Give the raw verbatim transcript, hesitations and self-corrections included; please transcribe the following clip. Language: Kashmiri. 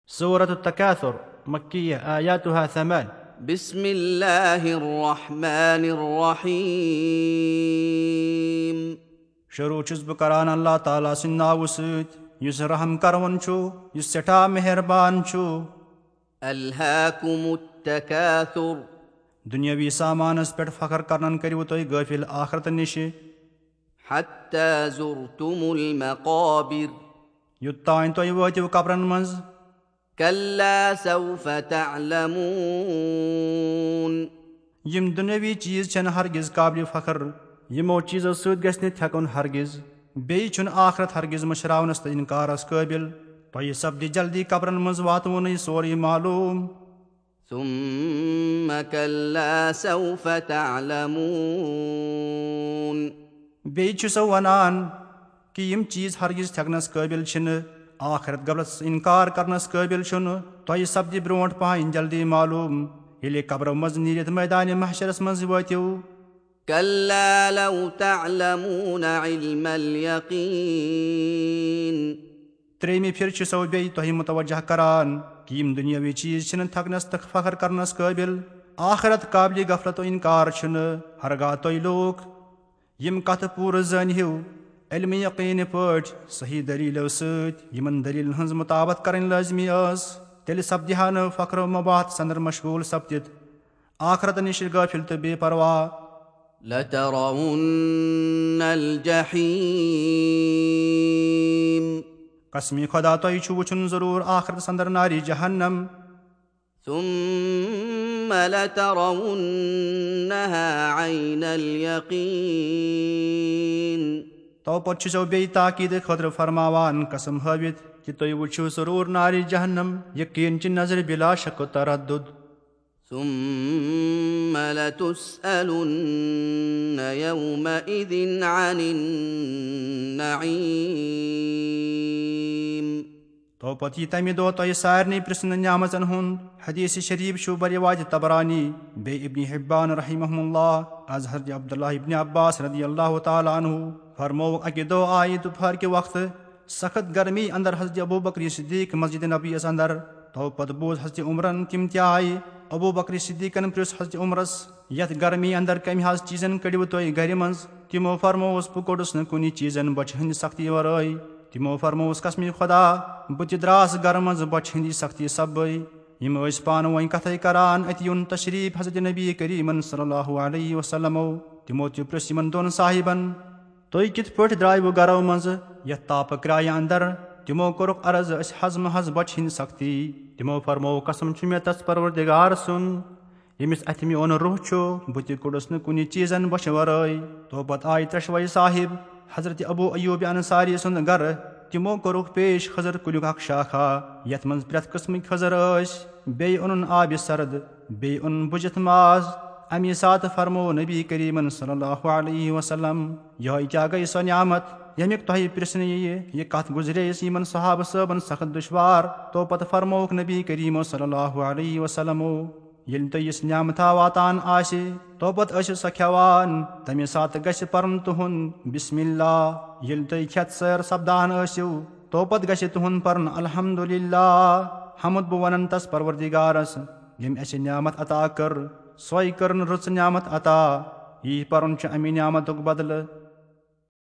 سورة التكاثر، مكية، آياتها ثمان۔ بسم الله الرحمن الرحيم۔ شروع چھُس بہٕ کران اللہ تعالیٰ سٕنٛدِ ناوٕ سۭتۍ، یُس رحم کرون چھُ، یُس سٮ۪ٹھاہ مہربان چھُ۔ ألهاكم التكاثر۔ دُنیٲوی سامانس پٮ۪ٹھ فخر کرنن کٔرِو تُہۍ غٲفِل آخرت نِشہِ۔ حتى زرتم المقابر۔ یوٚتام تُہۍ وٲتِو قبرن منٛز۔ كلا سوف تعلمون۔ یِم دُنیٲوی چیٖز چھِنہٕ ہرگز قابلِ فخر۔ یِمو چیٖزو سۭتۍ گژھِ نہٕ تھٮ۪کُن ہرگز۔ بیٚیہِ چھُنہٕ آخرت ہرگز مٔشراونس تہٕ انکارس قٲبل۔ تۄہہِ سپدِ جلدی قبرن منٛز واتوُنٕے سورُے معلوم۔ ثم كلا سوف تعلمون۔ بیٚیہِ چھُ سُہ ونان کہِ یِم چیٖز ہرگز تھٮ۪کنس قٲبل چھِنہٕ، آخرت غفلتس انکار کرنس قٲبل چھُنہٕ۔ تۄہہِ سپدِ برونٛٹھ پہن جلدی معلوم، ییٚلہِ قبرو منٛز نیٖرِتھ مٲدانِ محشرس منٛز وٲتِو۔ كلا لو تعلمون علم اليقين۔ ترٛیٚیمہِ پھِرِ چھُ سو بیٚیہِ تۄہہِ متوجہ کران کہِ یِم دُنیٲوی چیٖز چھِنہٕ تھکنس تہٕ فخر کرنس قٲبل، آخرت قابلِ غفلت و انکار چھُنہٕ۔ ہرگاہ تُہۍ لوٗکھ یِم کتھٕ پوٗرٕ زٲنۍ ہِو، علمِ یقیٖنہٕ پٲٹھۍ، صحیح دٔلیٖلو سۭتۍ، یِمن دٔلیٖلن ہٕنٛز مطابقت کرٕنۍ لٲزمی ٲس، تیٚلہِ سپدِ ہا نہٕ فخر و مباحت سندر مشغول سپدِتھ آخرت نِش غٲفِل تہٕ بے پرواہ۔ لترون الجحيم۔ قسمِ خدا، تۄہہِ چھُ وٕچھُن ضروٗر آخرت سندر نارِ جہنم۔ ثم لترونها عين اليقين۔ تو پتہٕ چھُ سو بیٚیہِ تاکید خٲطرٕ فرماوان قسم ہٲوِتھ کہِ تُہۍ وٕچھِو ضروٗر نارِ جہنم یقیٖن چہِ نظرِ بلا شک و تردد۔ ثم لتسألن يومئذ عن النعيم۔ تو پتہٕ یی تمہِ دۄہ تۄہہِ سارنٕے پرژھنہٕ نعمژن ہُنٛد۔ حدیث شریف چھُ بروایت طبرانی، بیٚیہِ ابن حبان رحمہ اللہ، از حضرت عبداللہ ابن عباس رضی اللہ تعالیٰ عنہ فرمووُکھ، اکہِ دۄہ آیہِ دُپہر کہِ وقتہٕ سخت گرمی اندر حضرت ابو بکر صدیق مسجد نبویس اندر۔ تو پتہٕ بوٗز حضرت عمرن تِم تہِ آیہِ۔ ابو بکر صدیقن پرژھ حضرت عمرس، یتھ گرمی اندر کمہِ حظ چیٖزن کٔڑِو تُہۍ گرِ منٛز؟ تِمو فرمووُس، بہٕ کوٚڑُس نہٕ کُنہِ چیٖزن بۄچھِ ہٕنٛدِ سختی ورٲے۔ تِمو فرمووُس، قسمِ خدا، بہٕ تہِ درٛاس گرٕ منٛز بۄچھِ ہٕنٛدِ سختی سببے۔ یِم ٲسۍ پانہٕ وۄنۍ کتھے کران، اتہِ یُن تشریف حضرت نبی کریمن صلی اللہ علیہ وسلمو۔ تِمو تہِ پرژھ یِمن دۄن صاحبن، تُہۍ کِتھ پٲٹھۍ درٛایوٕ گرو منٛزٕ یتھ تاپہٕ کرایہِ اندر؟ تِمو کوٚرُکھ عرض، أسۍ حض محض بۄچھِ ہٕنٛدِ سختی۔ تِمو فرموو، قسم چھُ مےٚ تس پروردگار سُنٛد، ییٚمِس اَتھِ میون روح چھُ، بہٕ تہِ کوٚڑُس نہٕ کُنہِ چیٖزن بۄچھِ ورٲے۔ تو پتہٕ آیہِ ترٛٮ۪شوَے صاحب حضرت ابو ایوب انصاری سُنٛد گرٕ۔ تِمو کوٚرُکھ پیش خضر کُلیُک اکھ شاخہ، یتھ منٛز پرٛٮ۪تھ قٕسمٕکۍ خضر ٲسۍ۔ بیٚیہِ اوٚنُن آبِ سرد، بیٚیہِ اوٚنُن بُجِتھ ماز۔ اَمی ساتہٕ فرموو نبی کریمن صلی اللہ علیہ وسلم، یِہوٚے کیٛاہ گٔے سۄ نعمت، ییٚمیُک تۄہہِ پرٛژھنہٕ یِیہِ؟ یہِ کتھ گُزرییَس یِمن صحابہٕ صٲبن سخت دُشوار۔ تو پتہٕ فرمووُکھ نبی کریمو صلی اللہ علیہ وسلمو، ییٚلہِ تۄہہِ یِژھ نعمتھا واتان آسہِ، تو پتہٕ ٲسِو سۄ کھٮ۪وان۔ تَمہِ ساتہٕ گژھِ پرُن تُہُنٛد بسم اللہ۔ ییٚلہِ تُہۍ کھٮ۪تھ سیر سپدان ٲسِو، تو پتہٕ گژھِ تُہُنٛد پرُن الحمدللہ۔ حمد بہٕ ونن تس پروردگارس، ییٚمۍ اَسہِ نعمت عطا کٔر، سۄے کٔرٕن رٕژ نعمت عطا۔ یی پرُن چھُ اَمہِ نعمتُک بدلہٕ۔